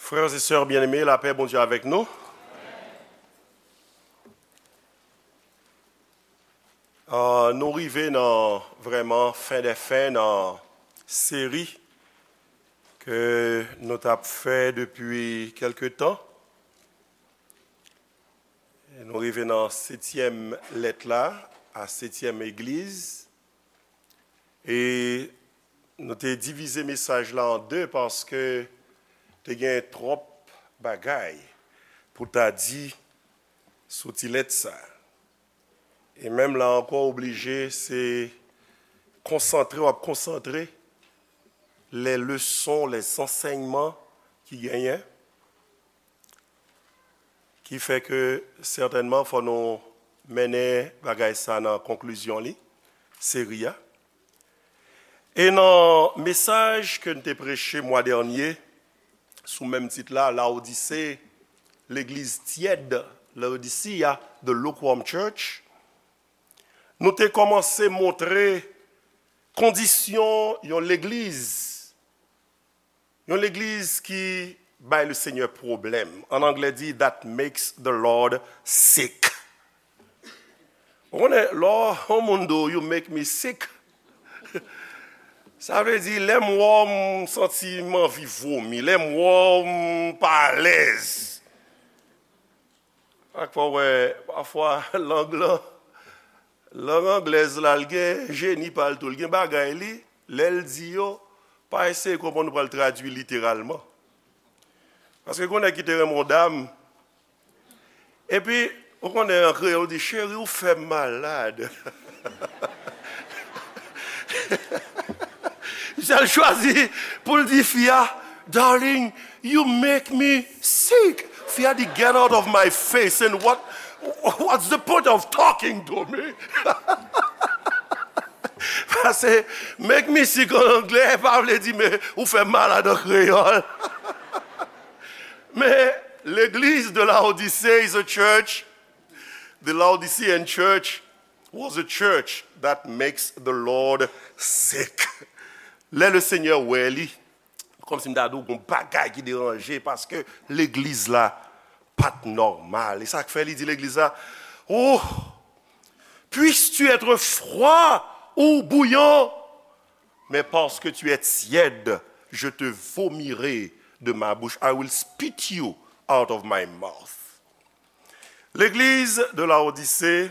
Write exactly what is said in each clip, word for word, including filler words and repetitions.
Frères et sœurs bien-aimés, lapè Bondye avèk nou. Ah, nou rive nan vrèman fen dè fen nan seri ke nou t ap fè depi kèlke tan. Nou rive nan setyèm lèt la, a setyèm egliz. E nou te divize mesaj la an de paske te gen twòp bagay pou ta di sou ti lèt sa. E menm la ankò, oblije se konsantre, w ap konsantre les leçons, les enseignements ki genyen, ki fè ke sètènman fò nou mennen bagay sa nan konklizyon li, seri a. E nan mesaj ke n te preche mwa dènye, sou menm tit la, Laodise, legliz tyèd, Laodicea, the lukewarm church, nou te kòmanse montre kondisyon yon legliz, yon legliz ki bay le Seigneur pwoblèm. An anglè di, that makes the Lord sick. Ou konnen, lè yon moun di w, "You make me sick." Sa vle di, lè m wè w, m santi m anvi vomi. Lè m wè w, m pa alèz. Ak fò w wè, pafwa, lang lan, lang anglèz la, l gen jeni pa l tou. L gen bagay li, lè l di yo, pa eseye konprann ou pral tradui literalman. Paske gen yon nèg ki te renmen yon dam, epi, ou konnen an kreyòl, ou di, "Cheri, ou fè m malad." Misye al chwazi pou l di fi a, "Darling, you make me sick." Fi a di, "Get out of my face, and what, what's the point of talking to me?" Paske "make me sick" an anglè pa vle di, "Men ou fè m malad" an kreyòl. Men legliz de Laodicée is a church. The Laodicean church was a church that makes the Lord sick. Lè le Seigneur wè li, kòmsi m ta di w gon bagay ki deranje, paske legliz la pa t nòmal. E sa k fè li di legliz la, "Oh, puisses-tu être froid ou bouillant, mais parce que tu es tiède, je te vomirai de ma bouche. I will spit you out of my mouth." Legliz de Laodise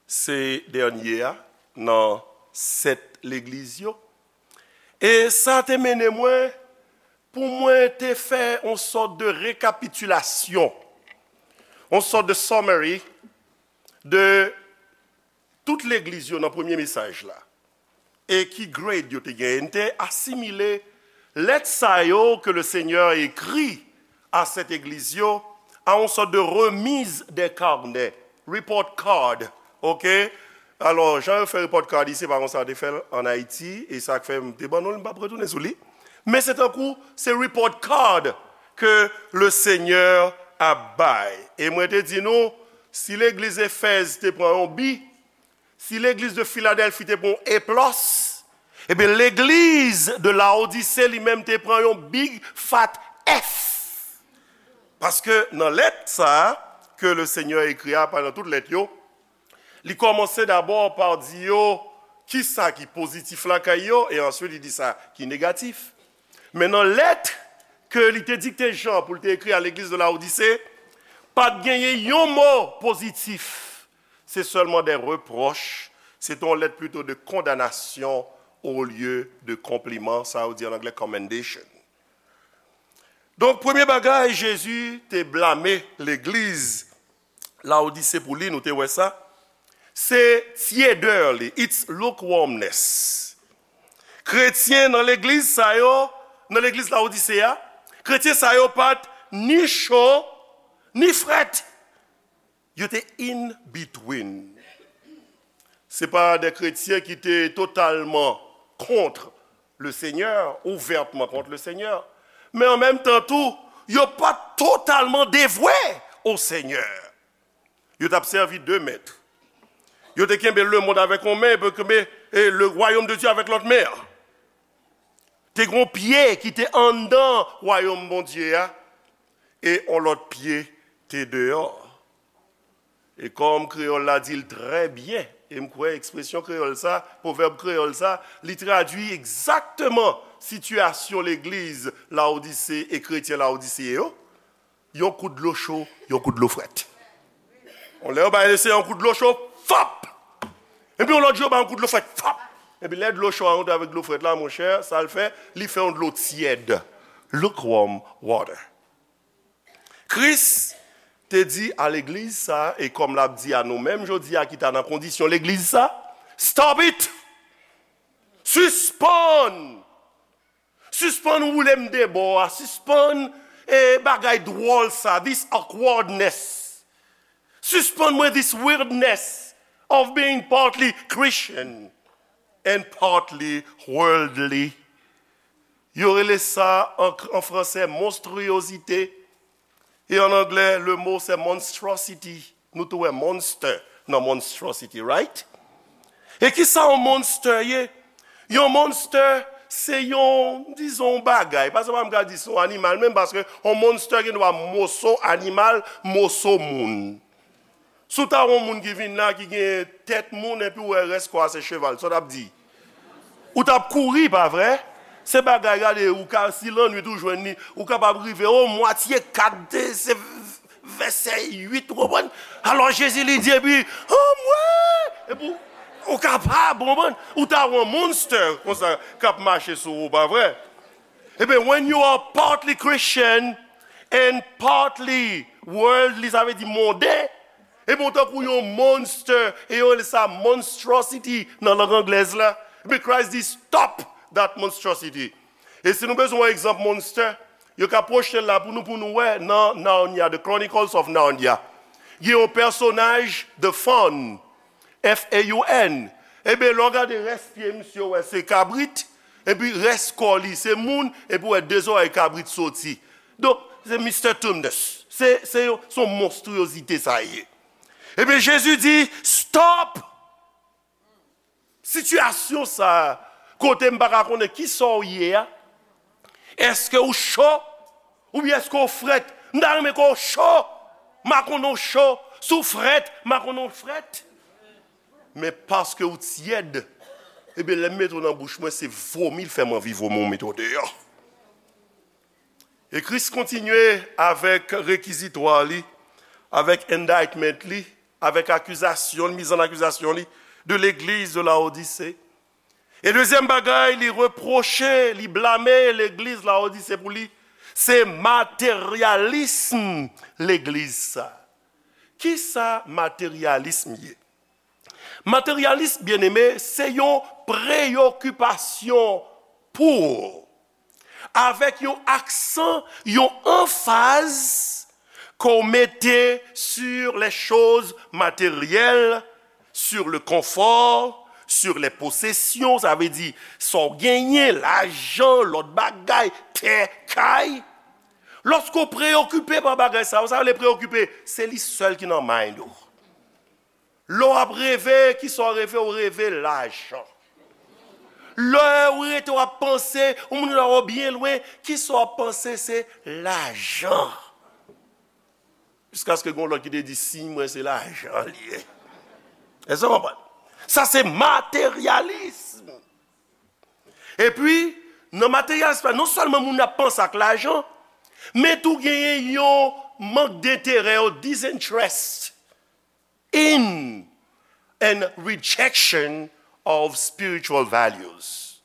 se dènye a nan sèt legliz yo. E sa te mennen mwen pou mwen te fè yon sòt de rekapitilasyon, yon sòt de summary de tout legliz yo nan premye mesaj la. E ki grade yo te genyen. M te asimile lèt sa yo ke le Seigneur écrit à cette église yo a yon sòt de remise des carnets, report card, ok? Alò, jan yo fè report card isi, se pa konsa yo te fè l an Ayiti, e sa k fè m te ban nou l, m p ap retounen sou li. Men se tankou, se report card ke le Seigneur ap bay. E mwen te di nou, si legliz Efèz te pran yon bi, si legliz de Filadèlfi te pran yon A plus, ebyen, legliz de Laodise li menm te pran yon big fat F. Paske nan lèt sa a, ke le Seigneur écrit a, pa nan tout lèt yo, li kòmanse dabò pa di yo kisa ki pozitif lakay yo, e answit li di sa ki negatif. Men nan lèt ke li te dikte Jan pou l te ekri a legliz de Laodise, pa t genyen yon mo pozitif. Se sèlman de repwòch. Se te yon lèt plito de kondanasyon olye de konpliman, sa yo di an anglè commendation. Donk, premye bagay, Jezi te blame legliz Laodise pou li, nou te wè sa. Se tyedè li, its lukewarmness. Kretyen nan legliz sa yo, nan legliz Laodise a, kretyen sa yo pa t ni cho, ni frèt. Yo te in between. Se pa de kretyen ki te totalman kont le Senyè, ouvètman kont le Senyè, men an menm tan tou, yo pa t totalman devwe o Senyè. Yo t ap sèvi de mèt. Yo te kenbe lemonn avèk yon men, epi yo kenbe, e, le royaume de Dieu avèk lòt men an. Te gen yon pye ki te anndan wayòm Bondye a, e yon lòt pye te deyò. E kòm kreyòl la di l trè byen, e m kwè ekspresyon kreyòl sa, pwovèb kreyòl sa, li tradui egzakteman sitiyasyon legliz Lawodise e kretyen Lawodise yo, yon kout dlo cho, yon kout dlo frèt. Yon lè yo bay Lesenyè yon kout dlo cho, fòp! Epi yon lòt jou yo bay yon kout dlo frèt, fòp! Epi lè dlo cho a rantre avèk dlo frèt la, monchè, sa l fè, li fè yon dlo tyèd. Lukewarm water. Kris te di a legliz sa, e kòm l ap di a nou menm jodi a ki ta nan kondisyon legliz sa, stop it! Sispann! Sispann woule m de bò a, sispann e bagay dwòl sa, this awkwardness. Sispann mwen this weirdness of being partly Christian and partly worldly. Yo rele sa an, an fransè monstriyozite. E an anglè, le mo se monstrosity. Nou tou wè monster nan monstrosity, right? E ki sa yon monster ye? Yon monster se yon, dizon, yon bagay. Paske m pa ka di se yon animal menm, paske yon monster gen dwa moso animal, moso moun. Si w ta wè yon moun ki vin la, ki gen tèt moun, epi w wè rès kò a se cheval, sa w t ap di? Ou t ap kouri, pa vre? Se bagay, gade, ou ka, si lannwit ou jwenn li, ou kapab rive o mwatye kat, se vèsè uit, ou konprann? Alò Jezi li di, epi, o mwen! Epi, ou kapab, ou konprann? Ou ta wè yon monster konsa k ap mache sou ou, pa vre? Ebyen, when you are partly Christian and partly worldly, sa vle di monden, ebyen, ou tankou yon monster, e yo rele sa monstrosity nan lang anglèz la. Ebyen, Christ di, stop that monstrosity. E si nou bezwen yon egzanp monster, yo ka pwochte l la pou nou, pou nou wè nan Narnia, The Chronicles of Narnia. Gen yon pèsonaj, The Faun, F A U N. Ebyen, lè w gade rès pye misye, w wè se kabrit, epi rès kò li se moun, epi w wè de zòrèy kabrit soti. Donk, se Mister Tumnus. Se, se yon, se yon monstriyozite sa ye. Ebyen, Jezi di, stop! Sitiyasyon sa a, kote m pa ka konnen ki sa w ye a, èske w cho? Oubyen èske w frèt? M ta renmen ke w cho. M pa konnen w cho. Si w frèt, m pa konnen w frèt. Men paske w tyèd, ebyen, lè m mete w nan bouch mwen, se vomi l fè m anvi vomi w mete w deyò. E Kris kontinye avèk rekizitwa li, avèk indictment li, avèk akizasyon, miz an akizasyon li, de legliz de Laodise. E dezyèm bagay, li repwoche, li blame legliz Laodise pou li, se materyalism legliz sa. Kisa materyalism ye? Materyalism, byeneme, se yon preyokipasyon pou, avèk yon aksan, yon anfaz ke w mete sur les choses matérielles, sur le confort, sur les possessions, sa vle di sa w genyen, lajan, lòt bagay, tè, kay. Lòske w preyokipe pa bagay sa yo, sa vle preyokipe, se li sèl ki nan mind ou. Lè w ap reve, kisa w reve? W reve lajan. Lè w rete w ap panse, yon moun la wè w byen lwen, kisa w ap panse? Se lajan. Jiskaske gen yon lòt ki te di, siy mwen se lajan li ye. Èske w konprann? Sa se materyalism. Epi, nan materyalism la, non sèlman moun ap panse ak lajan, men tou genyen yon mank denterè, yon disinterest in and rejection of spiritual values.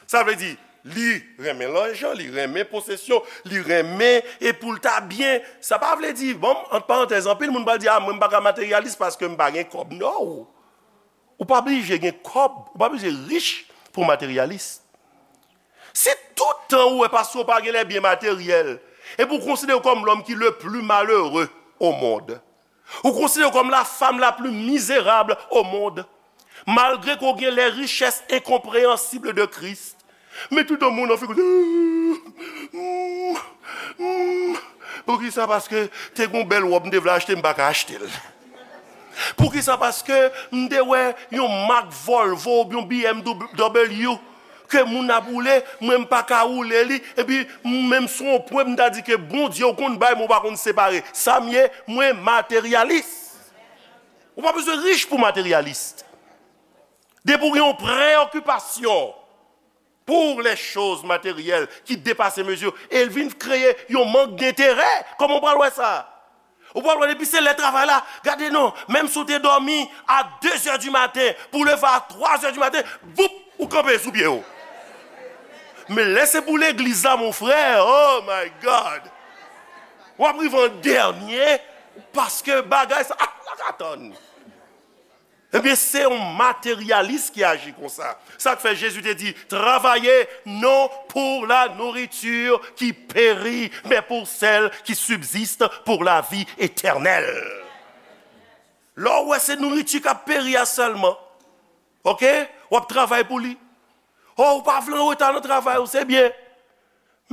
Sa vle di, li renmen lajan, li renmen posesyon, li renmen e pou l ta byen. Sa pa vle di, bon, ant parantèz, anpil moun pral di, a, mwen m pa ka materyalis paske m pa gen kòb. No! Ou pa blije gen kòb, ou pa blije rich pou w materyalis. Si tout tan ou wè paske w pa gen les biens matériels, epi w konsidere w kòm l'homme qui le plus malheureux au monde, ou konsidere w kòm la femme la plus misérable au monde, malgre ke w gen les richesses incompréhensibles de Christ, men tout tan moun nan figi w, poukisa? Paske te gen yon bèl wòb m te vle achte, m pa ka achte l. Poukisa? Paske m te wè yon mak Volvo oubyen yon B M W, ke moun ap woule, mwen m pa ka woule li, epi m menm sou yon pwen m ta di ke Bondye ou konn bay, men ou pa konn separe. Sa m ye, mwen materyalis. Ou pa bezwen rich pou materyalis. Depi w gen yon preokipasyon pour les choses matérielles ki depase mezi, e l vin kreye yon mank denterè. Kòman w pral wè sa? Ou pral wè depi se lè travay la, gade non, menm si w te dòmi a de zè di maten, pou w leve a twa zè di maten, voup, ou kanpe sou pye w. Men lè se pou legliz la, mon frè, oh my God! W ap rive an dènye, paske bagay sa, ah, la ka tann. Ebyen, se yon materyalis ki aji konsa. Sa k fè Jezi te di, travaillez non pour la nourriture qui périt, mais pour celle qui subsiste pour la vie éternelle. Lè w wè se nouriti k ap peri a sèlman, oke, w ap travay pou li. O, ou pa vle anreta nan travay ou, se byen.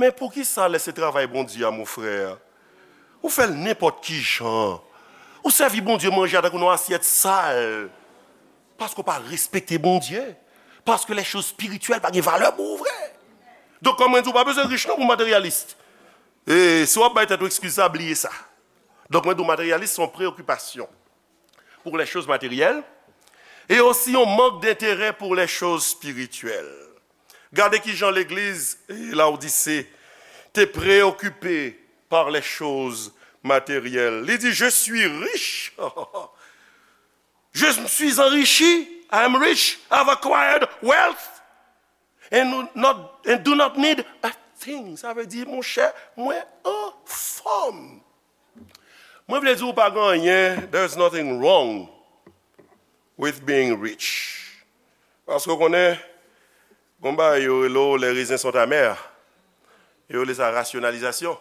Men poukisa lè se travay Bondye a, mon frè, ou fè l nenpòt ki jan? Ou sèvi Bondye manje a tankou nan asyèt sal. Paske w pa respekte Bondye. Paske les choses spirituelles pa gen valè pou ou vre. Donk, kòm mwen di, ou pa bezwen rich non pou materyalis. E si w ap bay tèt ou eskiz sa, bliye sa. Donk, mwen di w, materyalis se yon preokipasyon pour les choses matérielles et aussi yon mank denterè pour les choses spirituelles. Gade ki jan legliz, eh, Laodise te preokipe par les choses matérielles. Li di, je suis riche. Je me suis enrichi. I am rich. I have acquired wealth. And not, and do not need a thing. Sa vle di, monchè, mwen anfòm. Mwen vle di ou pa gen anyen, there's nothing wrong with being rich. Paske w konnen, gon bagay yo rele w les raisins sont amers. Yo rele sa rasyonalizasyon.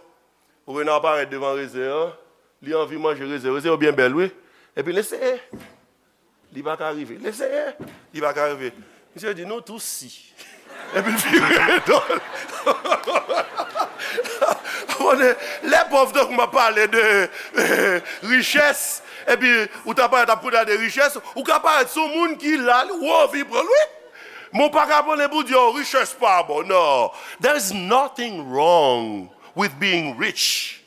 Ou wè nan parèt devan rezen an, li anvi manje rezen. Rezen yo byen bèl, wi. Epi l eseye. Li pa ka rive. L eseye. Li pa ka rive. Misye di, nou tou si. Epi l vire do l. Konnen, lè pòv tankou m ap pale de, eh, richès, epi ou ta parèt ap koute de richès, ou ka parèt sou moun ki la, ou anvi pran l, wi. Men w pa ka pran l pou di, oh, richès pa bon. Non. There's nothing wrong with being rich.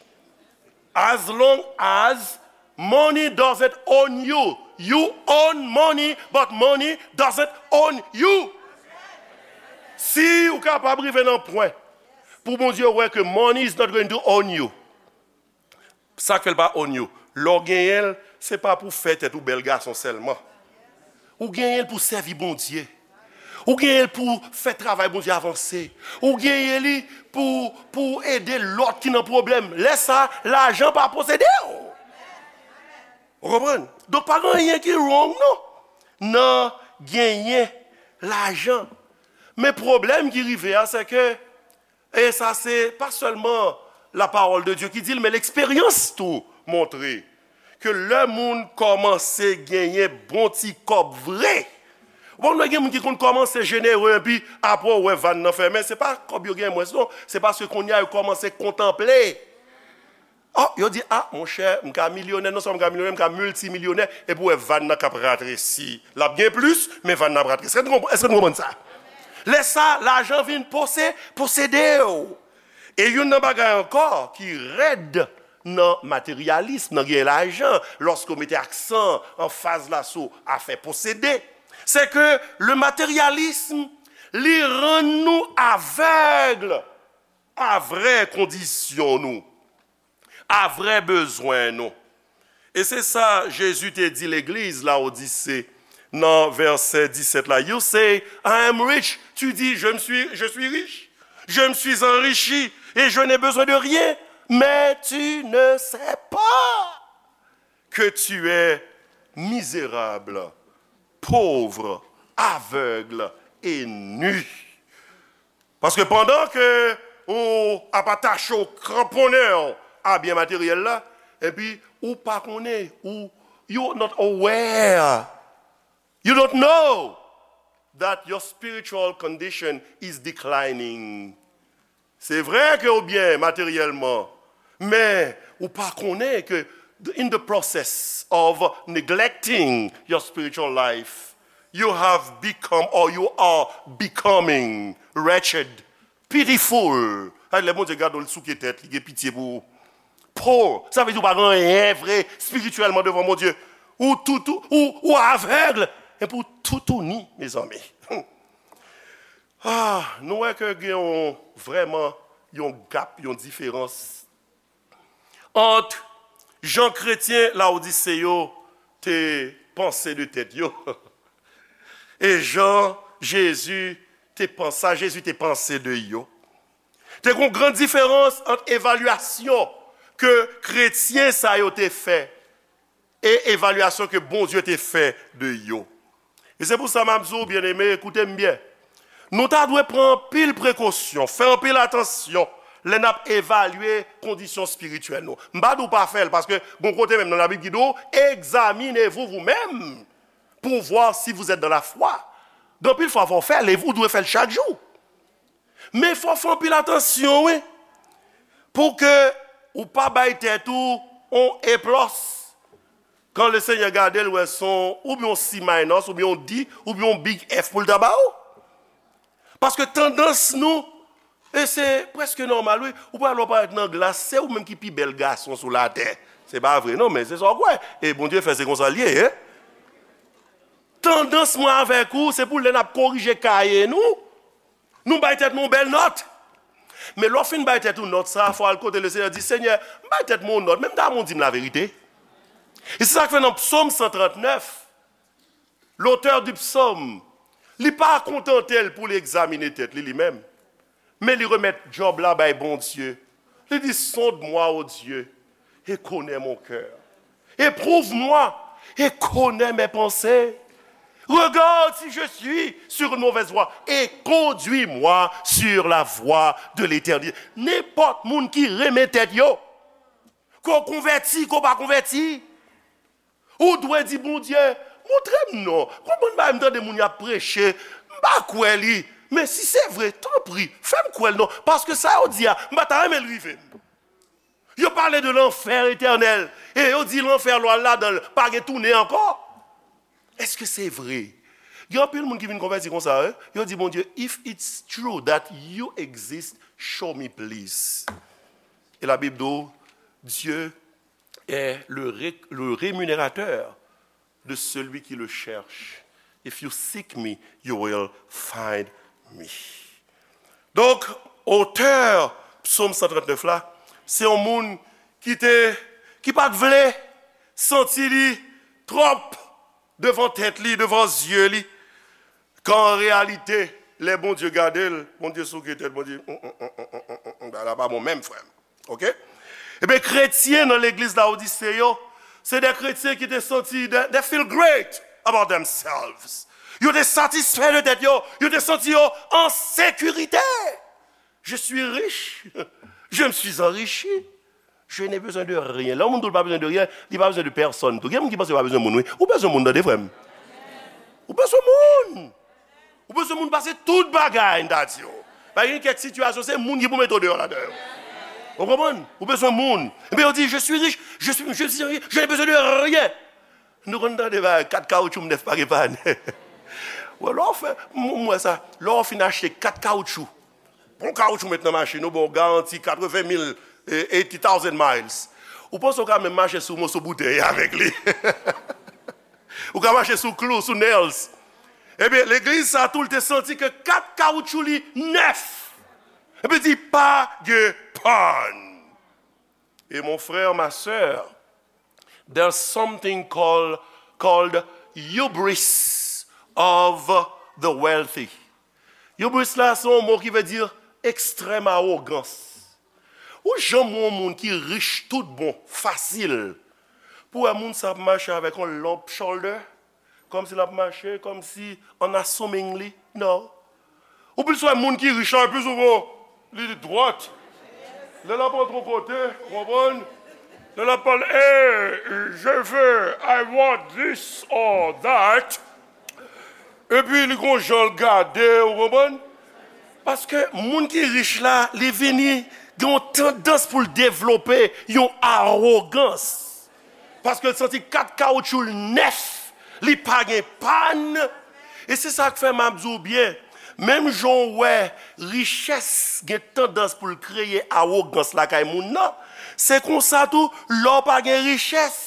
As long as money doesn't own you. You own money, but money doesn't own you. Si ou kapab rive nan pwen pou Bondye wè ke money is not going to own you, sa k fè l pa own you? Lè w genyen l, se pa pou fè tèt ou bèl gason sèlman. Ou genyen l pou sèvi Bondye. Ou genyen l pou fè travay Bondye avanse. Ou genyen li pou, pou ede lòt ki nan pwoblèm. Lè sa, lajan pa posede w. Ou konprann? Donk, pa gen anyen ki wrong, non, nan genyen lajan. Men pwoblèm ki rive a, se ke, e sa se pa sèlman la parole de Dieu ki di l, men leksperyans tou montre ke lè moun kòmanse genyen bon ti kòb vre, ou konn wè gen moun ki konn kòmanse jenere, epi apre w wè vàn nan fèmen, se pa kòb yo gen mwens, non, se paske kounye a yo kòmanse kontanple. Oh, yo di, ah, monchè, m ka milyonè, non sèlman m ka milyonè, m ka miltimilyonè, epi w wè vàn nan k ap ratresi. L ap gen plis, men vàn nan ap ratresi. Èske nou konprann, èske nou konprann sa? Lè sa, lajan vin pose-, posede w. E youn nan bagay ankò ki rèd nan materyalism, nan gen lajan, lòske w mete aksan, anfaz la sou afè posede, se ke le matérialisme, li rann nou avèg a vrè kondisyon nou, a vrè bezwen nou. E se sa Jezi te di legliz Laodise nan vèsè disèt la. You say, I am rich. Tu dis, je me suis, je suis riche. Je me suis enrichi et je n'ai besoin de rien. Mais tu ne sais pas que tu es misérable, pauvre, aveugle et nu. Paske pandan ke ou ap atache w, kranponnen w a byen materyèl la, epi ou pa konnen, ou, you not aware, you don't know that your spiritual condition is declining. Se vre ke ou byen materyèlman, men ou pa konnen ke in the process of neglecting your spiritual life, You have become or you are becoming wretched, pitiful. Ay, lè Bondye gade w, li souke tèt, li gen pitye pou ou. Poor, sa vle di ou pa gen anyen vre espirityèlman devan Bondye. Ou toutou, ou, ou avèg, epi ou toutouni, mezanmi. Ah, nou wè ke gen yon, vrèman yon gap, yon diferans ant jan kretyen Lawodise yo te panse de tèt yo e jan Jezi te panse, sa Jezi te panse de yo. Te gen yon gran diferans ant evalyasyon ke kretyen sa yo te fè e evalyasyon ke Bondye te fè de yo. E se pou sa m ap di w, byeneme, koute m byen. Nou ta dwe pran anpil prekosyon, fè anpil atansyon lè n ap evalye kondisyon espirityèl nou. M pa di w pa fè l, paske gon kote menm nan Labib ki di w, examinez-vous vous-même pour voir si vous êtes dans la foi. Gen anpil fwa fò w fè l, e ou dwe fè l chak jou. Men fò w fè anpil atansyon, wi, pou ke ou pa bay tèt ou on A plis. Kan Lesenyè gade l, wè se on, oubyen on C minus, oubyen on D, oubyen on big F pou l ta ba ou. Paske tandans nou, e se prèske nòmal, wi, ou pral wè w parèt nan glas, se ou menm ki pi bèl gason sou latè. Se pa vre, non, men se sa w kwè. E Bondye fè se konsa l ye, en. Tandans mwen avèk ou, se pou lè n ap korije kaye nou, nou bay tèt nou yon bèl nòt. Men lè w fin bay tèt ou nòt sa, fò w al kote Lesenyè, di, Senyè, m bay tèt mwen yon nòt, men m ta renmen w di m laverite. E se sa k fè nan Psaume cent trente-neuf, l'auteur du psaume, li pa kontante l pou li egzamine tèt li, li menm. Men li remèt djòb la bay Bondye. Li di, sonde-moi, ô Dieu, et connais mon cœur. Éprouve-moi et connais mes pensées. Regarde si je suis sur une mauvaise voie et conduis-moi sur la voie de l'éternité. Nenpòt moun ki renmen tèt yo, ke w konvèti, ke w pa konvèti, ou dwe di Bondye, montre m non. Konbyen bagay m tande moun y ap preche, m pa kwè li. Men si se vre, tanpri, fè m kwè l non. Paske sa yo di a, m pa ta renmen l rive m. Yo pale de lanfè etènèl. E yo di lanfè lè w al ladan l, pa gen tounen ankò. Èske se vre? Gen anpil moun ki vin konvèti konsa, wi. Yo di Bondye, if it's true that you exist, show me please. E Labib di w, Dieu est le, ré- le rémunérateur de celui qui le cherche. If you seek me, you will find me. Donk, otè Psaume cent trente-neuf la, se yon moun ki te, ki pa t vle santi li twòp devan tèt li, devan zye li, kan an reyalite, lè Bondye gade l, Bondye souke tèt, Bondye, "Mm, mm, mm, mm, mm, mm, mm, bagay la pa bon menm, frè m." Oke? Ebyen, kretyen nan legliz Lawodise yo, se de kretyen ki te santi, they, they feel great about themselves. Yo te satisfè de tèt yo, yo te santi yo an sekirite. Je suis riche, je me suis enrichi, je n'ai besoin de rien. Lè yon moun di w l pa bezwen de ryen, li pa bezwen de pèsonn tou. Gen moun ki panse yo pa bezwen moun, wi. Ou bezwen moun, tande, frè m. Ou bezwen moun. Ou bezwen moun pase tout bagay, m ta di w. Pa gen kèk sitiyasyon, se moun ki pou mete w deyò ladan yo. Ou konprann? Ou bezwen moun. Epi yo di, je suis riche, je suis, je suis riche, je n'ai besoin de rien. Nou konn tande bagay, kat kawoutchou m nèf pa gen pann. Wè, lè w fè, m, m wè sa, lè w fin achte kat kawoutchou, bon kawoutchou met nan machin ou, bon, garanti katreven mil, eh, eighty thousand miles. Ou panse w ka menm mache sou moso boutèy avèk li? Ou ka mache sou klou, sou nails. Ebyen, legliz sa tou, l te santi ke kat kawoutchou li nèf. Epi di, pa gen pann. Et mon frère, ma sœur, there's something called, called hubris of the wealthy. Hubris la, se yon mo ki vle di ekstrèm awogans. Ou janm wè yon moun ki rich tout bon, fasil, pou wè moun sa ap mache avèk yon lump shoulder, kòmsi l ap mache, kòmsi an assumingly. Non. Ou plis wè moun ki rich la, plis ou wè li dwat. Lè l ap antre yon kote, ou konprann? Lè l ap pale, hey, je veux, I want this or that. Epi li gon jan l gade, ou konprann? Paske moun ki rich la, li vini gen yon tandans pou l devlope yon awogans. Paske l santi kat kawoutchou l nèf, li pa gen pann, E se sa k fè m ap di w byen, menm jan w wè richès gen tandans pou l kreye awogans lakay moun nan, se konsa tou, lè w pa gen richès,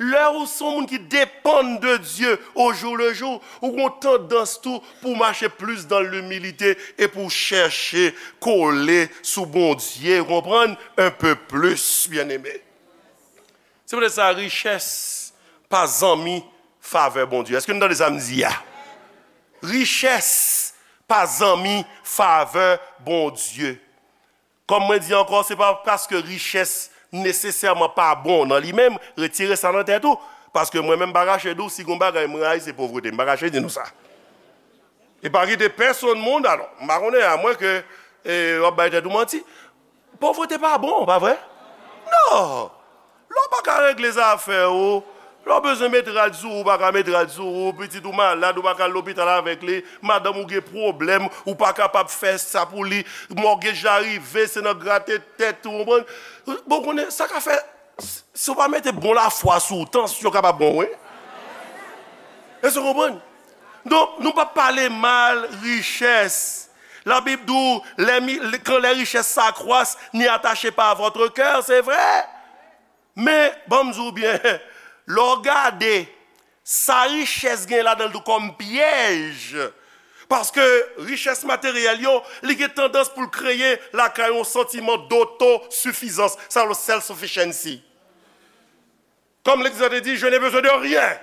lè ou se yon moun ki depann de Dye au jour le jour, ou gen tandans tou pou w mache plis dans l'humilité e pou w chèche kole sou Bondye, ou konprann, un peu plus, byeneme. Se poutèt sa, richès pa zanmi favè Bondye. Èske nou tande sa m di a? Richès pa zanmi favè Bondye. Kòm mwen di ankò, se pa paske richès nesesèman pa bon nan li menm, retire sa nan tèt ou. Paske mwen menm, m pa kache di w, si gon bagay m rayi, se povrete. M pa kache di nou sa. E pa kite pèsonn moun, alò, m pa konnen, amwen ke e, w ap bay tèt ou manti. Povrete pa bon, pa vre? Non! Lè w pa ka regle zafè ou, lè w bezwen met rad sou ou, ou pa ka met rad sou ou, pitit ou malad, ou pa ka al lopital avèk li, madanm ou gen pwoblèm, ou pa kapab fè sa pou li, mògej la rive, se nan grate tèt ou, konprann? Bon, konnen, sa ka fè, si w pa mete bon lafwa sou ou, tansyon kapab pran w, wi. Èske w konprann? Donk, nou p ap pale mal richès. Labib di w, les mi- quand les richesses s'accroissent, n'y attachez pas votre cœur, se vre. Men, ban m di w byen, lè w gade, sa richès gen ladan l tou kòm pyèj. Paske richès materyèl yo, li gen tandans pou l kreye lakay yon santiman dotosifizans, sa yo self-sufficiency. Kòm legliz la te di, je n'ai besoin de rien.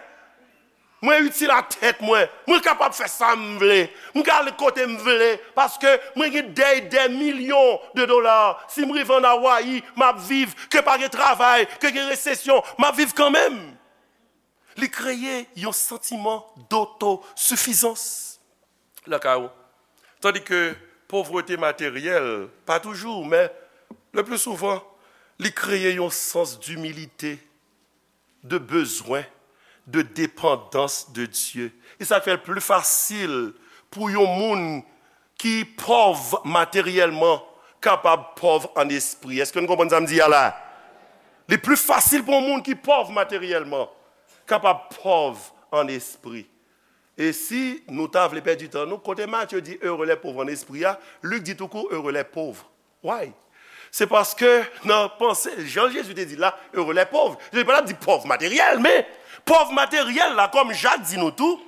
Mwen itil a tèt mwen. Mwen kapab fè sa m vle. Mwen ka ale kote m vle. Paske mwen gen des, des millions de dollars. Si m rive ann Awayi, m ap viv. Ke pa gen travay, ke gen resesyon, m ap viv kanmenm. Li kreye yon santiman dotosifizans lakay ou. Tandis que pauvreté matérielle, pas toujours, mais le plus souvent, li kreye yon sans d'humilité, de bezwen, de dépendance de Dieu. E sa k fè l pli fasil pou yon moun ki pòv materyèlman kapab pòv an espri. Èske nou konprann sa m di a la? Li pli fasil pou yon moun ki pòv materyèlman kapab pòv an espri. E si nou ta vle pèdi tan nou, kote Matye di heureux les pauvres en esprit a, Lik di toukou heureux les pauvres. Why? Se paske nan panse, jan Jezi te di la, heureux les pauvres. Jezi pa t ap di pòv materyèl, men pòv materyèl la, kòm Jak di nou tou,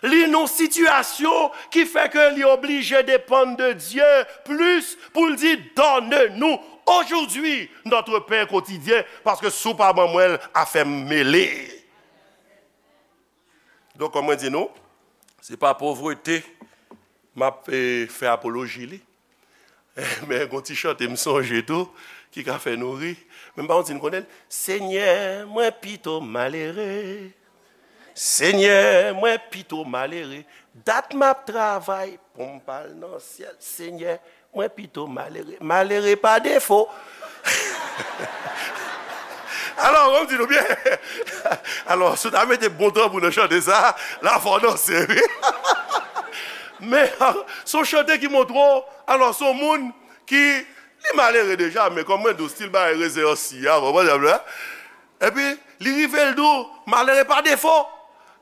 li nan yon sitiyasyon ki fè ke li oblije depann de Dye plis pou l di, donne-nous aujourd'hui notre pain quotidien, paske si w pa ban mwen l, afè m mele. Donk, kòm mwen di nou, se pa povrete m ap, eh, fè apoloji li. Men gon ti chante m sonje tou, ki ka fè nou ri. Men m pa konn si n konnen l. Senyè, mwen pito malere. Senyè, mwen pito malere. Dat m ap travay pou m pa al nan syèl. Senyè, mwen pito malere. Malere pa defo. Alò, ban m di nou byen. Alò, si w ta mete bon tanbou nan chante sa, la fò danse, wi. Men, se yon chante ki montre w, alò, se yon moun ki, li malere deja, men kòm mwen di w, stil bagay rezen ansi a, konprann sa m di w la? Epi, li rive, l di w, malere pa defo.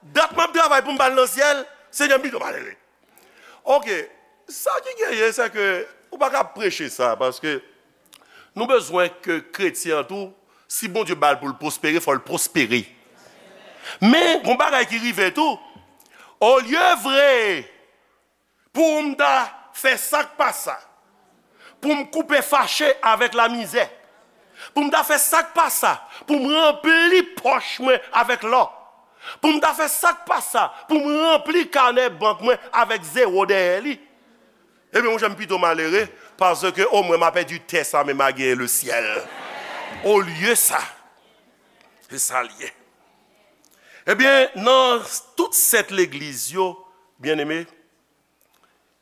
Dat m ap travay pou m pa al nan syèl, Senyè, m pito malere. Oke, sa ki genyen, se ke ou pa ka preche sa, paske nou bezwen ke kretyen an tou, si Bondye ba l pou l pwospere, fò l pwospere. Men, gon bagay ki rive tou, olye vre pou m ta fè sa k pa sa, pou m koupe fache avèk lamizè, pou m ta fè sa k pa sa, pou m ranpli pòch mwen avèk lò, pou m ta fè sa k pa sa, pou m ranpli kanè bank mwen avèk zewo dèyè li, ebyen, monchè, m pito malere, paske omwen m a pèdi tè sa, men m a genyen lesyèl. Olye sa, se sa l ye. Ebyen, nan tout sèt legliz yo, byeneme,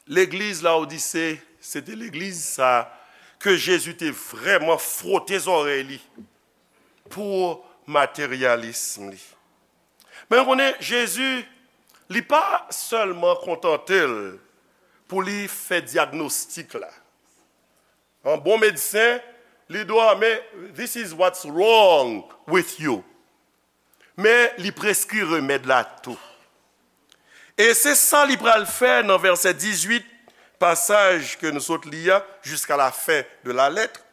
legliz Lawodise, se te legliz sa ke Jezi te vrèman fwote zòrèy li pou materyalism li. Men nou konnen, Jezi, li pa sèlman kontante l pou li fè dyagnostik la. An bon medsen, li di w, men, this is what's wrong with you. Men li preskri remèd la tou. E se sa li pral fè nan vèsè dizuit, pasaj ke nou sot li a, jusqu'à la fin de la lettre.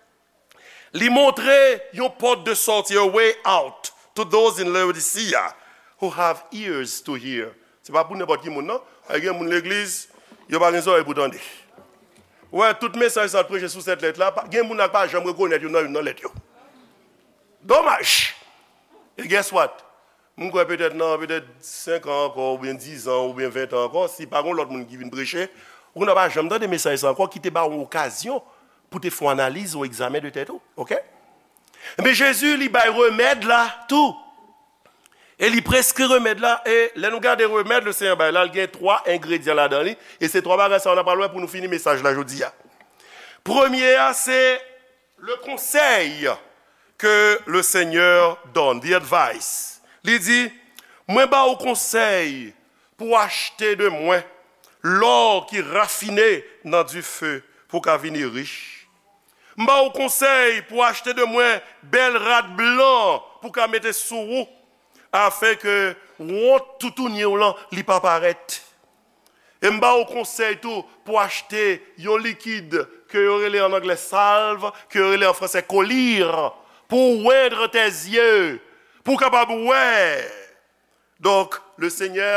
Li montre yon pòt de sòti, a way out, to those in Laodicea who have ears to hear. Se pa pou nenpòt ki moun, non. Ay, gen moun legliz, yo pa gen zòrèy pou tande. Ou wè, tout mesaj sa preche sou sèt lèt la, pa- gen moun la ki pa janm rekonèt youn nan youn nan lèt yo. Domaj! E guess what? M kwè petèt nan petèt senk an ankò, oubyen diz an, oubyen ven an ankò, si pa gen lòt moun ki vin preche, ou nan pa janm tande mesaj sa ankò, ki te ba w yon okazyon pou te fè yon analiz, yon egzamen de tèt ou, oke? Men Jezi, li bay remèd la tou. E li preskri remèd la, e lè nou gade remèd le Senyè bay la, li gen twa engredyan ladan li, e se twa bagay sa yo n ap pral wè pou nou fini mesaj la jodi a. Premye a, se le conseil que le Seigneur donne, the advice. Li di, mwen ba ou konsèy pou achte de mwen lò ki rafine nan dife pou w ka vini rich. M ba ou konsèy pou achte de mwen bèl rad blan pou w ka mete sou ou, afenke wont toutouni w lan li pa parèt. E m ba ou konsèy tou pou achte yon likid ke yo rele an anglè salve, ke yo rele an fransè collyre, pou wendre tes yeux, pou w kapab wè. Donk, le Senyè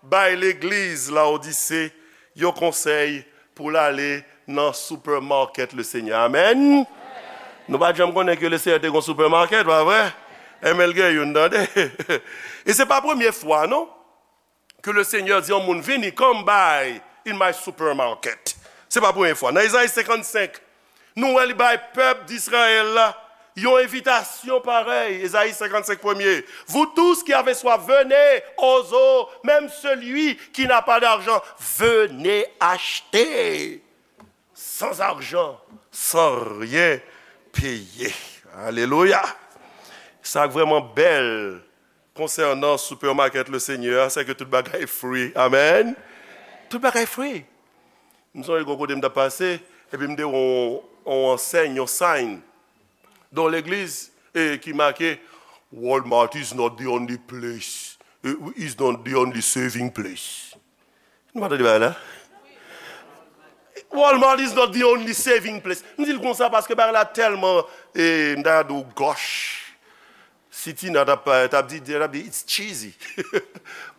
bay legliz Laodise yon konsèy pou l ale nan supermarket le Senyè. Amèn. Nou pa t janm konnen ke le Senyè te gon supermarket, pa vre? Enben l gen youn, tande. E se pa premye fwa, non, ke le Senyè di yon moun, vini, come buy in my supermarket. Se pa premye fwa. Nan Ezayi senkannsenk, nou wè li bay pèp Dizrayèl la yon envitasyon parèy. Ezayi senkannsenk premye. Vous tous qui avez soif, venez aux eaux, même celui qui n'a pas d'argent, venez acheter sans argent, sans rien payer. Alelouya! Sa k vrèman bèl konsènan supermarket le Senyè a, se ke tout bagay free. Amèn! Tout bagay free. M sonje gon kote m t ap pase, epi m te wè yon, yon ansèy, yon sign, yon legliz, e ki make, Walmart is not the only place, eh, is not the only saving place. Nou pa tande bagay la? Walmart is not the only saving place. M di l konsa paske bagay la tèlman, e, m ta di w gòch. Si Tina t ap, t ap di, t ap di, it's cheesy.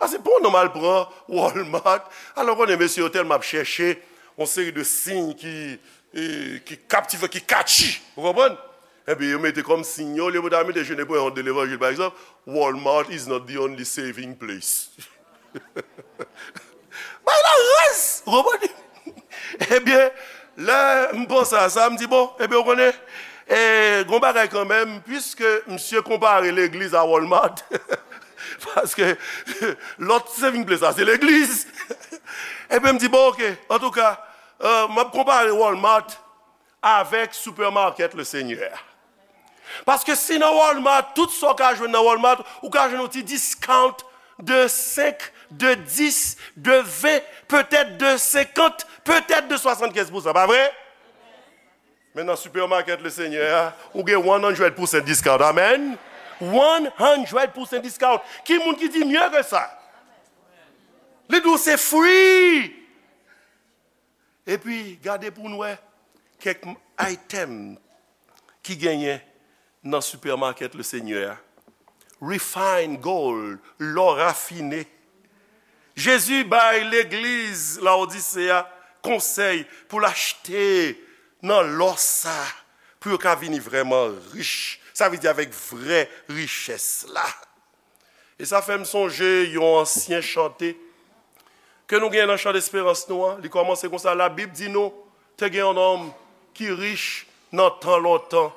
Paske pou yon nonm al pran Walmart, alò konnen mesye yo tèlman ap chèche yon seri de siy ki, e, ki kaptivan, ki catchy. Ou konprann? Epi yo mete kòm siy yo, olye pou ta mete Je ne peux honte de l'évangile, pa egzanp, Walmart is not the only saving place. Bay la raz! Ou konprann? Ebyen, lè m panse a sa, m di, bon, ebyen, ou konnen, e, gon bagay kanmenm, piske misye konpare legliz a Walmart, paske lòt saving place la, se legliz. Ebyen, m di, bon, oke, antouka, e, m ap konpare Walmart avèk supermarket le Senyè. Paske si nan Walmart, tout sa w ka jwenn nan Walmart, ou ka jwenn yon ti discount de senk, de dis, de ven, petèt de senkant, petèt de swasannkenz pousan, pa vre? Men nan supermarket le Senyè a, ou gen one hundred percent discount. Amèn. One hundred percent discount. Ki moun ki di mye ke sa? Li di w se free. Epi, gade pou n wè kèk item ki genyen nan supermarket le Senyè a. Refined gold, lò rafine. Jezi bay legliz Laodise a konsèy pou l achte nan lò sa, pou yo ka vini vrèman rich. Sa vle di avèk vrè richès la. E sa fè m sonje yon ansyen chante ke nou gen nan chan desperans nou an. Li kòmanse konsa, Labib di nou, te gen yon nonm ki rich nan tan lontan.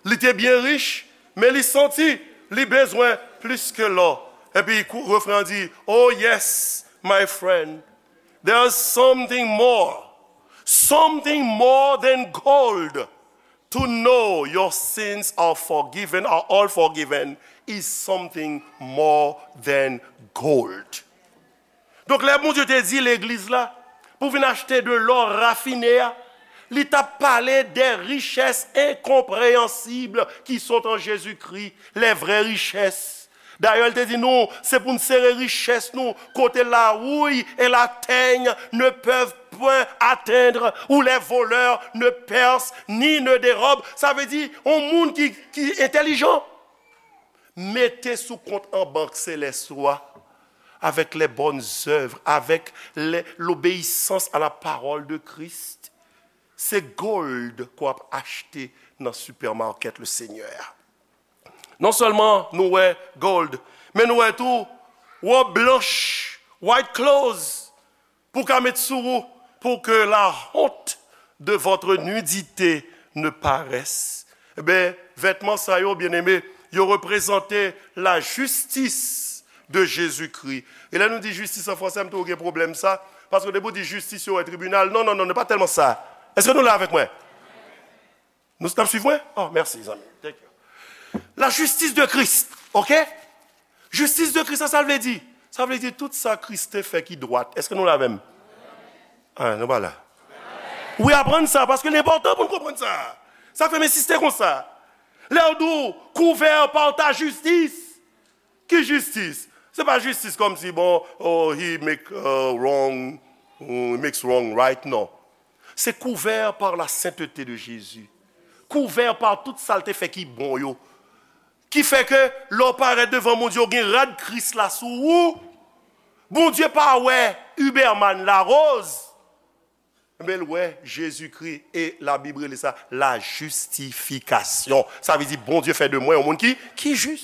Li te byen rich, men li santi li bezwen plis ke lò. Epi kou- refren an di, Oh yes, my friend, there's something more, something more than gold. To know your sins are forgiven, are all forgiven, is something more than gold. Donk, lè Bondye te di legliz la pou vin achte de lò rafine a, li t ap pale des richesses incompréhensibles qui sont en Jésus-Christ, les vraies richesses. Dayè, l te di nou, se pou n sere richès nou kote la houille et la teigne ne peuvent point atteindre, où les voleurs ne percent ni ne dérobent. Sa vle di, yon moun ki, ki entèlijan, mete sou kont an bank selès ou a, avec les bonnes œuvres, avec les, l'obéissance à la parole de Christ. Se gold ke w ap achte nan supermarket le Seigneur. Non sèlman nou wè gold, men nou wè tou wòb blanch, white clothes, pou ka met sou ou, pour que la honte de votre nudité ne paraisse. Ebyen, vètman sa yo, byeneme, yo reprezante la justice de Jésus-Christ. E lè nou di jistis an fransè, m toujou gen pwoblèm sa, paske depi w di jistis, yo wè tribinal. Non, non, non, non, pa tèlman sa. Èske nou la avèk mwen? Nou, n ap swiv mwen? Oh, mèsi, zanmi. Thank you. La justice de Christ, ok? Jistis de Kris la, sa l vle di? Sa vle di tout sa Kris te fè ki dwat. Èske nou la avè m? Ah, nou pa la. Wi, aprann sa, paske l enpòtan pou n konprann sa. Sa k fè m ensiste konsa. Lè w di w, couvert par ta justice. Ki jistis? Se pa jistis kòmsi, bon, oh, he make, uh, wrong, he makes wrong right, non. Se couvert par la sainteté de Jésus. Couvert par tout sa l te fè ki bon yo. Ki fè ke lè w parèt devan Bondye, w gen rad Kris la sou ou. Bondye pa wè Huberman Larose, men l wè Jezikri, e Labib rele sa la justification. Sa vle di Bondye fè de mwen yon moun ki, ki jis.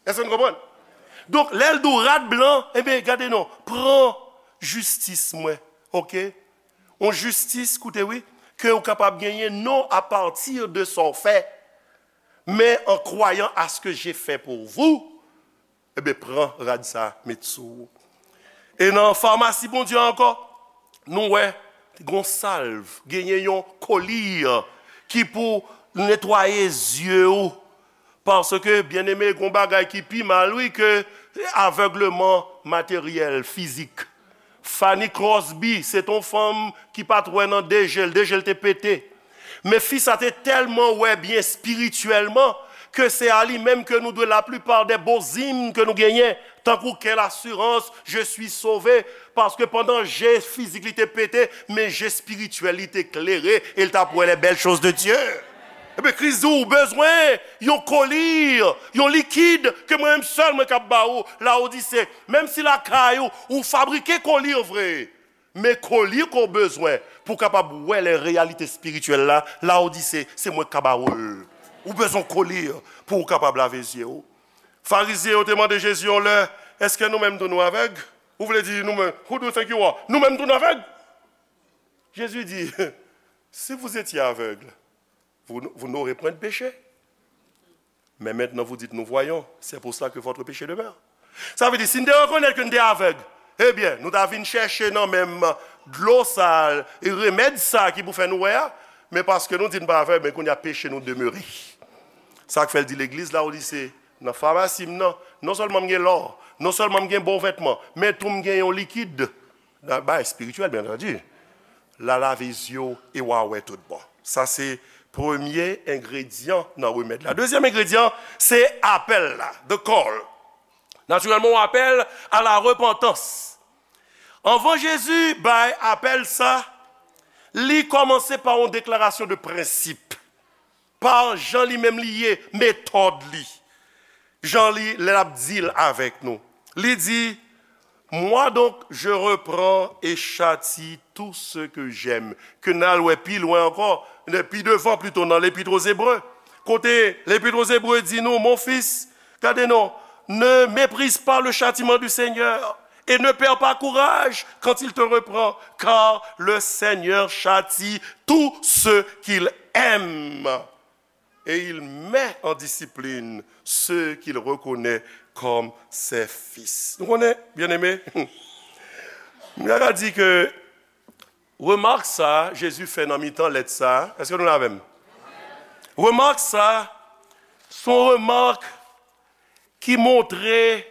Èske nou konprann? Donk, lè l di w rad blan, ebyen, gade non, pran jistis mwen, oke? Yon jistis, koute wi, ke w kapab genyen non à partir de sa w fè, mais en croyant à ce que j'ai fait pour vous, ebyen, pran rad sa, met sou ou. E nan famasi Bondye ankò, nou wè, gon salv, genyen yon kolir ki pou netwaye zye ou. Paske, byeneme, gon bagay ki pi mal, wi, ke avègleman materyèl, fizik. Fanny Crosby, se t on fanm ki pa t wè nan de je l, de je l te pete. Men fi sa te tèlman wè byen espirityèlman ke se a li menm ke nou dwe laplipa de bo zim ke nou genyen, tankou quelle assurance, je suis sauvé, paske pandan je fizik li te pete, men je espirityèl li te klere, e l t ap wè les belles choses de Dieu. Ebyen, Kris di w bezwen yon kolir, yon likid ke mwen menm sèl mwen k ap ba ou, Laodise. Menm si lakay ou, ou fabrike kolir vre, men kolir ke w bezwen pou w kapab wè les réalités spirituelles la, Laodise, se mwen k ka ba ou l. Ou bezwen kolir pou w kapab lave zye w. Farizyen yo te mande Jezi yon lè, èske nou menm tou nou avèg? Ou vle di nou menm, who do you think you are? Nou menm tou nou avèg? Jésus dit, si vous étiez aveugle, vous, vous n'aurez point de péché. Mais maintenant vous dites, nous voyons, c'est pour cela que votre péché demeure. Sa vle di, si n te rekonèt ke n te avèg, ebyen, nou ta vin chèche nan menm dlo sa, e remèd sa ki pou fè nou wè a, men paske nou di n pa avèg, men kounye a peche nou demere. Sa k fè l di legliz Laodise, nan famasi m nan, non sèlman m gen lò, non sèlman m gen bon vètman, men tou m gen yon likid, nan bay espirityèl, byen antandi. L a lave zye w e w a wè tout bon. Sa se premye engredyan nan remèd la. Dezyèm engredyan, se apèl la, the call. Natirèlman, yon apèl à la repentance. Anvan Jezi bay apèl sa, li kòmanse pa yon deklarasyon de prensip. Pa jan li menm li ye, metòd li. Jan li, lè l ap deal avèk nou. Li di, moi donc, je reprends et châtie tout ce que j'aime. Ke n al wè pi lwen ankò, pi devan plito nan Lepit aux Hébreux. Kote Lepit aux Hébreux di nou, mon fils, gade non, ne méprise pas le châtiment du Seigneur et ne perds pas courage quand il te reprend, car le Seigneur châtie tout ce qu'il aime. Et il met en discipline ceux qu'il reconnaît comme ses fils. Nou konnen, byeneme, m ka di ke remak sa Jezi fè nan mitan lèt sa, èske nou la avè m? Remak sa, se yon remak ki montre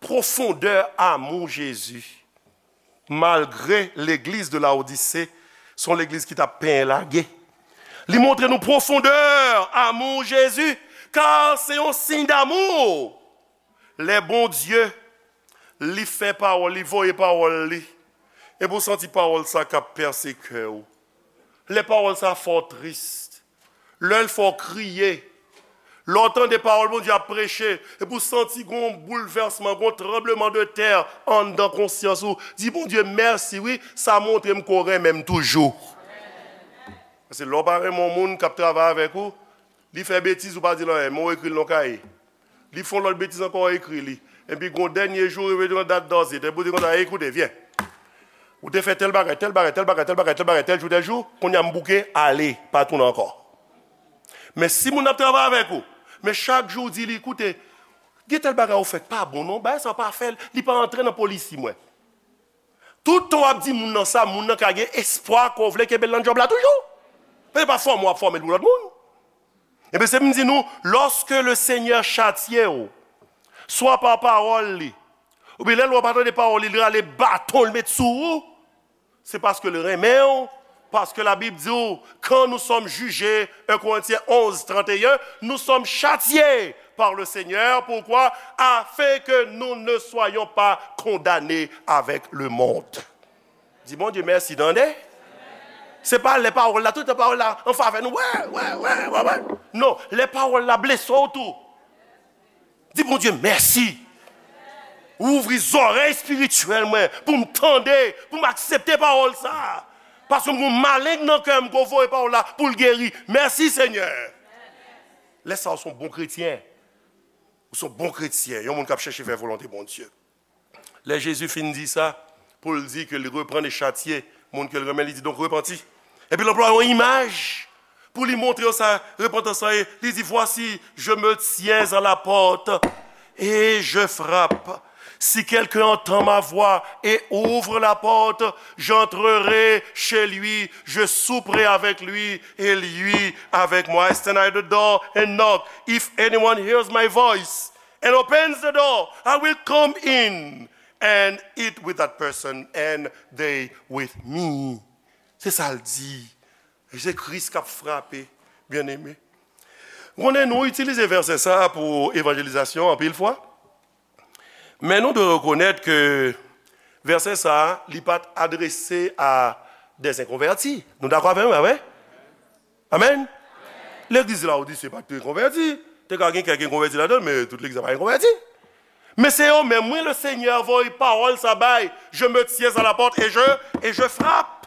pwofondè amou Jezi. Malgre legliz de Laodise, se yon legliz ki t ap penyen lage. Li montre nou pwofondè amou Jezi, kar se yon siy damou. Lè Bondye, li fè pawòl, li voye pawòl li, epi w santi pawòl sa k ap pèse kè w. Lè pawòl sa fè w tris. Lè l fè w kriye. Lè w tande pawòl Bondye ap preche, epi w santi gon boulvèsman, gon tranbleman de tè anndan konsyans ou. Di Bondye mèsi, wi, sa montre m ke w renmen m toujou. Paske lè w pa renmen yon moun k ap travay avèk ou, li fè betiz, ou pa di l anyen, men w ekri l nan yon kaye. Li fè yon lòt betiz ankò, w ekri li. Epi gon dènye jou, rive yon dat dòzit, epi w di konsa, "Ekoute, vyen. Ou te fè tèl bagay, tèl bagay, tèl bagay, tèl bagay, tèl bagay, tèl jou, tèl jou, kounye a m bouke, ale, pa tounen ankò." Men si moun nan ap travay avèk ou, men chak jou w di li, "Koute, gen tèl bagay ou fè k pa bon non, bagay sa w pa fè l, li pa antre nan polisi mwen." Tout tan w ap di moun nan sa, moun nan ka gen espwa ke w vle kenbe l nan djòb la toujou. Paske se pa fòme w ap fòme l pou lòt moun. Ebyen, se pou m di nou, lòske le Senyè chatye w, swa pa pawòl li, oubyen lè l wè w pa tande pawòl li, li rale baton, l met sou ou, se paske l renmen w, paske Labib di w, quand nous sommes jugés, un Corinthiens onze, trente et un, nous sommes châtiés par le Seigneur. Pourquoi? Afin que nous ne soyons pas condamnés avec le monde. Di Bondye mèsi, tande. Se pa lè pawòl la, tout tan pawòl la an favè nou. Wè, wè, wè, wè, wè. Non, lè pawòl la blese w tou. Di Bondye mèsi. Ou ouvri zòrèy espirityèl mwen pou m tande, pou m aksepte pawòl sa. Paske m gon maleng nan kè m ke w voye pawòl la pou l geri. Mèsi, Senyè. Lè sa, w se yon bon kretyen. Ou se yon bon kretyen, yon moun k ap chèche fè volonte Bondye. Lè Jezi fin di sa, pou l di ke li reprann e chatye moun ke l renmen, li di, "Donc, repanti." Epi l anplwaye yon imaj pou li montre yo sa repantans lan ye. Li di, "Voici, je me tiens à la porte et je frappe. Si quelqu'un entend ma voix et ouvre la porte, j'entrerai chez lui, je souperai avec lui et lui avec moi. I stand at the door and knock. If anyone hears my voice and opens the door, I will come in and eat with that person and they with me." Se sa l di. E se Kris k ap frape, byeneme. Konnen nou itilize vèsè sa a pou evanjelizasyon anpil fwa. Men nou dwe rekonèt ke vèsè sa a, li pa t adrese a des inconvertis. Nou dakò avè m, pa vre? Amèn? Legliz Laodise pa t enkonvèti. Te ka gen kèk enkonvèti ladan l, men tout legliz la pa enkonvèti. Men se yo menm, wi, le Senyè voye pawòl sa bay, "Je me tiens à la porte et je, et je frappe.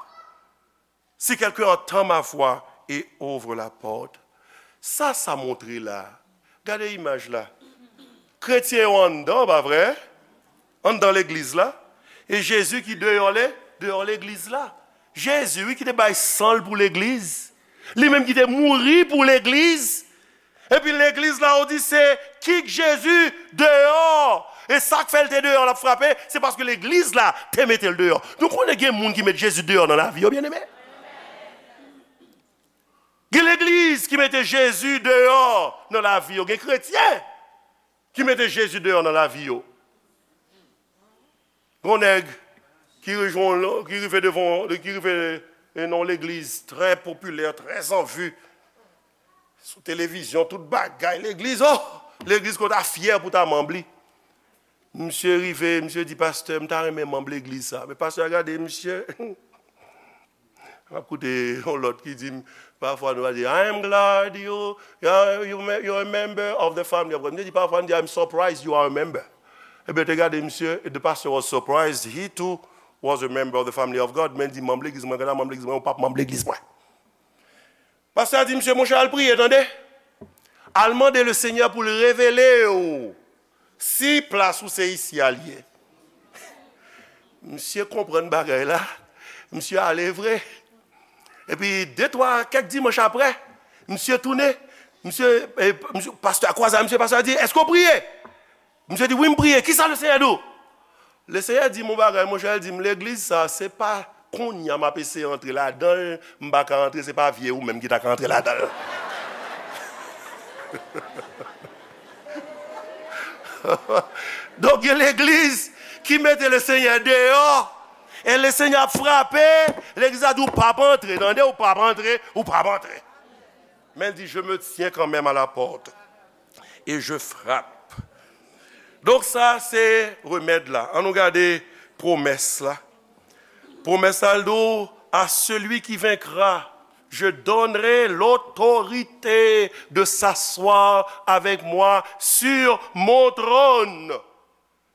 Si quelqu'un entend ma voix et ouvre la porte." Sa, sa montre la. Gade imaj la. Kretyen yo anndan, pa vre? Anndan legliz la. E Jezi ki deyò le, deyò legliz la. Jezi, wi, ki te bay san l pou legliz. Li menm ki te mouri pou legliz. Epi legliz Laodise kite Jezi deyò. E sa k fè l te deyò, l ap frape, se paske legliz la te mete l deyò. Nou konnen gen moun ki met Jezi deyò nan lavi yo, byeneme. Gen legliz ki mete Jezi deyò nan lavi yo. Gen kretyen ki mete Jezi deyò nan lavi yo. Gon nèg ki rejwenn, ki rive devan, ki rive nan yon legliz trè popilè, trè an vi. Sou televizyon, tout bagay, legliz, oh! Legliz ke w ta fyè pou w ta manm li. Misye rive, misye di, "Pastè, m ta renmen manm legliz sa." Men pastè a gade misye. M ap koute yon lòt ki di m, pafwa nou va di, "I am glad you, you, you, you're a member of the family of God." Misye di, pafwa, m di, "I'm surprised you are a member." Ebyen, te gade misye, the pastor was surprised, he too was a member of the family of God. Men di, "Manm legliz mwen, gade manm legliz mwen, ou p ap manm legliz mwen." Pastè a di, "Misye, monchè, al priye, tande. Al mande le Senyè pou l revele w si plas ou se isi a l ye." Misye konprann bagay la, misye ale vre. Epi de twa, kèk dimanch apre, misye tounen, misye, e, misye, pastè a kwaze a misye, pastè a di, "Èske w priye?" Misye di, "Wi, m priye. Kisa Lesenyè di w?" Lesenyè di m yon bagay, monchè, l di m, "Legliz sa, se pa kounye a m ap eseye antre ladan l, m pa ka antre, se pa vye ou menm ki ta ka antre ladan l." Donk, gen legliz ki mete Lesenyè deyò, e Lesenyè ap frape, legliz la di, "Ou p ap antre, tande, ou p ap antre, ou p ap antre." Men l di, "Je me tiens quand même à la porte et je frappe. Donk, sa se remèd la. Ann nou gade pwomès la. Pwomès la, l di w, à celui qui vaincra, je donnerai l'autorité de s'asseoir avec moi sur mon trône.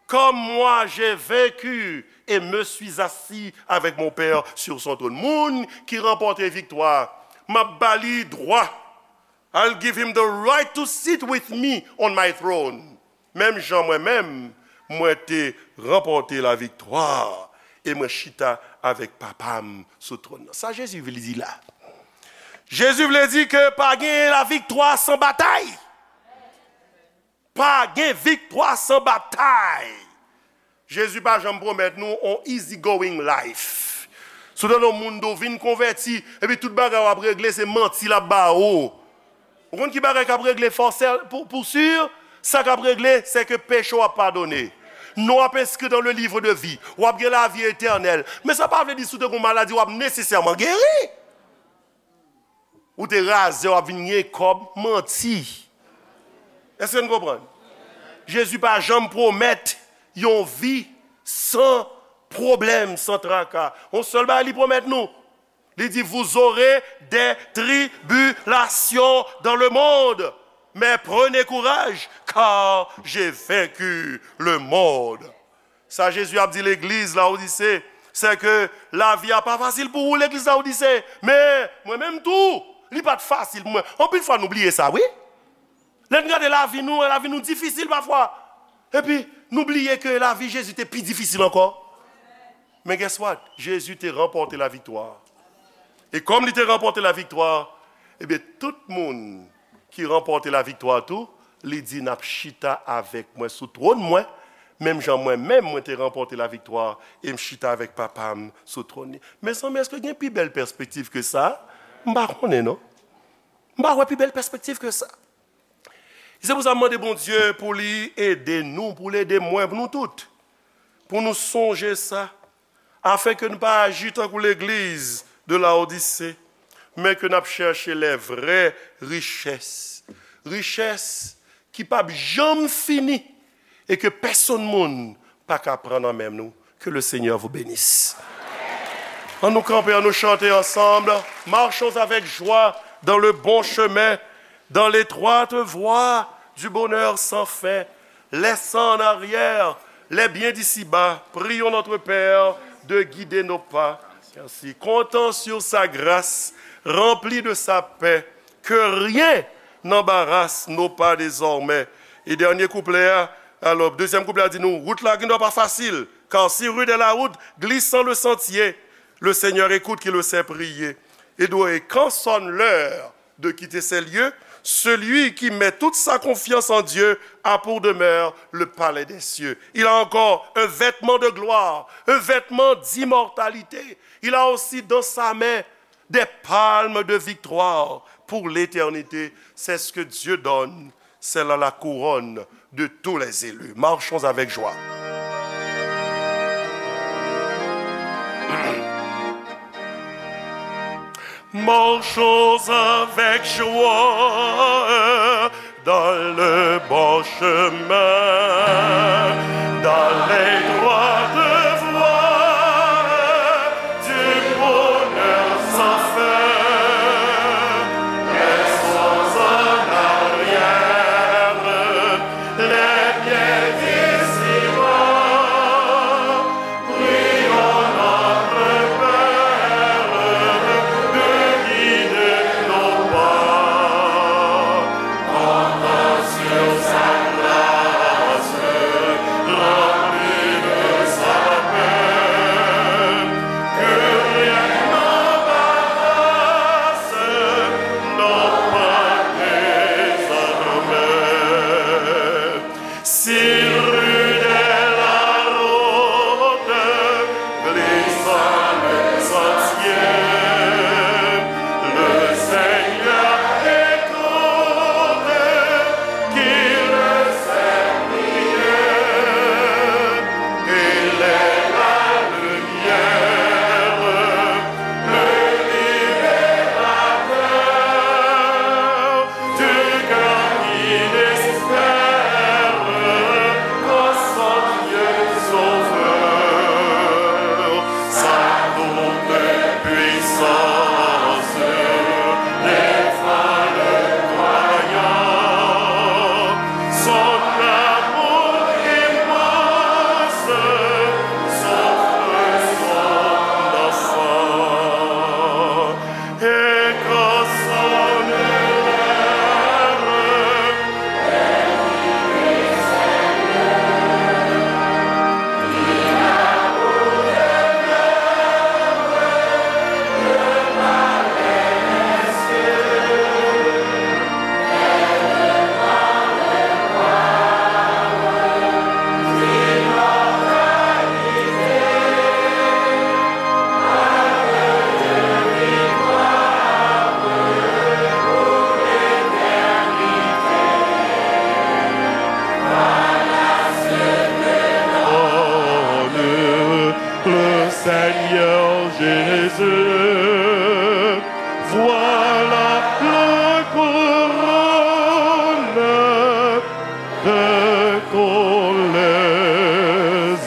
Comme moi j'ai vaincu et me suis assis avec mon Père sur son trône. Moun ki ranpòte viktwa, m ap ba li dwa. I'll give him the right to sit with me on my throne. Menm jan mwen menm, mwen te ranpòte laviktwa e mwen chita avèk Papa m sou twòn nan. Sa Jezi vle di la? Jezi vle di ke pa gen laviktwa san batay. Pa gen viktwa san batay. Jezi pa janm pwomèt nou on easy going life. Si w tande yon moun di w vin konvèti, epi tout bagay w ap regle, se manti l ap ba ou. Ou konn ki bagay k ap regle fòsè pou, pou si? Sa k ap regle, se ke peche w ap padone. Non w ap enskri dans le livre de vie. W ap gen lavi etènèl. Men sa pa vle di si w te gen yon maladi, w ap nesesèman geri. Ou te razè, w ap vin gen kòb, manti. Èske n konprann? Jezi pa janm pwomèt yon vi san pwoblèm, san traka. Yon sèl bagay li pwomèt nou. Li di, vous aurez des tribulations dans le monde, mais prenez courage, car j'ai vaincu le monde. Sa Jezi ap di legliz Lawodise, se ke lavi a pa fasil pou ou, legliz Lawodise. Men, mwen menm tou, li pa t fasil pou mwen. Anpil fwa, nou bliye sa, wi. Lè n gade lavi nou, lavi nou difisil pafwa. Epi, nou bliye ke lavi Jezi te pi difisil ankò. Men guess what? Jezi te ranpòte laviktwa. E kòm li te ranpòte laviktwa, ebyen, tout moun ki ranpòte laviktwa tou, li di, n ap chita avèk mwen sou twòn mwen, menm jan mwen menm mwen te ranpòte laviktwa e m chita avèk Papa m sou twòn li. Mezanmi, èske gen pi bèl pèspektiv ke sa? M pa konnen, non. M pa wè pi bèl pèspektiv ke sa. Se pou sa m mande Bondye pou li ede nou, pou l ede mwen, pou nou tout, pou nou sonje sa, afin ke nou pa aji tankou legliz de Lawodise, men ke n ap chèche les vraies richesses. Richès ki p ap janm fini e ke pèsonn moun pa ka pran nan men nou. Que le Seigneur vous bénisse. Ann nou kanpe, ann nou chante ansanm. Marchons avec joie dans le bon chemin, dans l'étroite voie du bonheur sans fin, laissant en arrière les biens d'ici-bas. Prions notre Père de guider nos pas. Merci. Comptant sur sa grâce, rempli de sa paix, que rien n'embarrasse nos pas désormais. E dènye kouplè a, alò, dezyèm kouplè a di nou, wout la gendwa pa fasil, car si rude est la route, glissant le sentier, le Seigneur écoute qui le sait prier. Et quand sonne l'heure de quitter ces lieux, celui qui met toute sa confiance en Dieu a pour demeure le palais des cieux. Il a encore un vêtement de gloire, un vêtement d'immortalité. Il a aussi dans sa main des palmes de victoire pour l'éternité. C'est ce que Dieu donne, c'est là la couronne de tous les élus. Marchons avec joie. Marchons avec joie dans le bon chemin, dans l'étroite voie du bonheur sans fin. Laissons en arrière les biens d'ici-bas. Prions notre Père de guider nos pas, comptant sur sa grâce. Voilà la couronne qu'ont les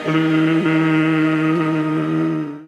élus.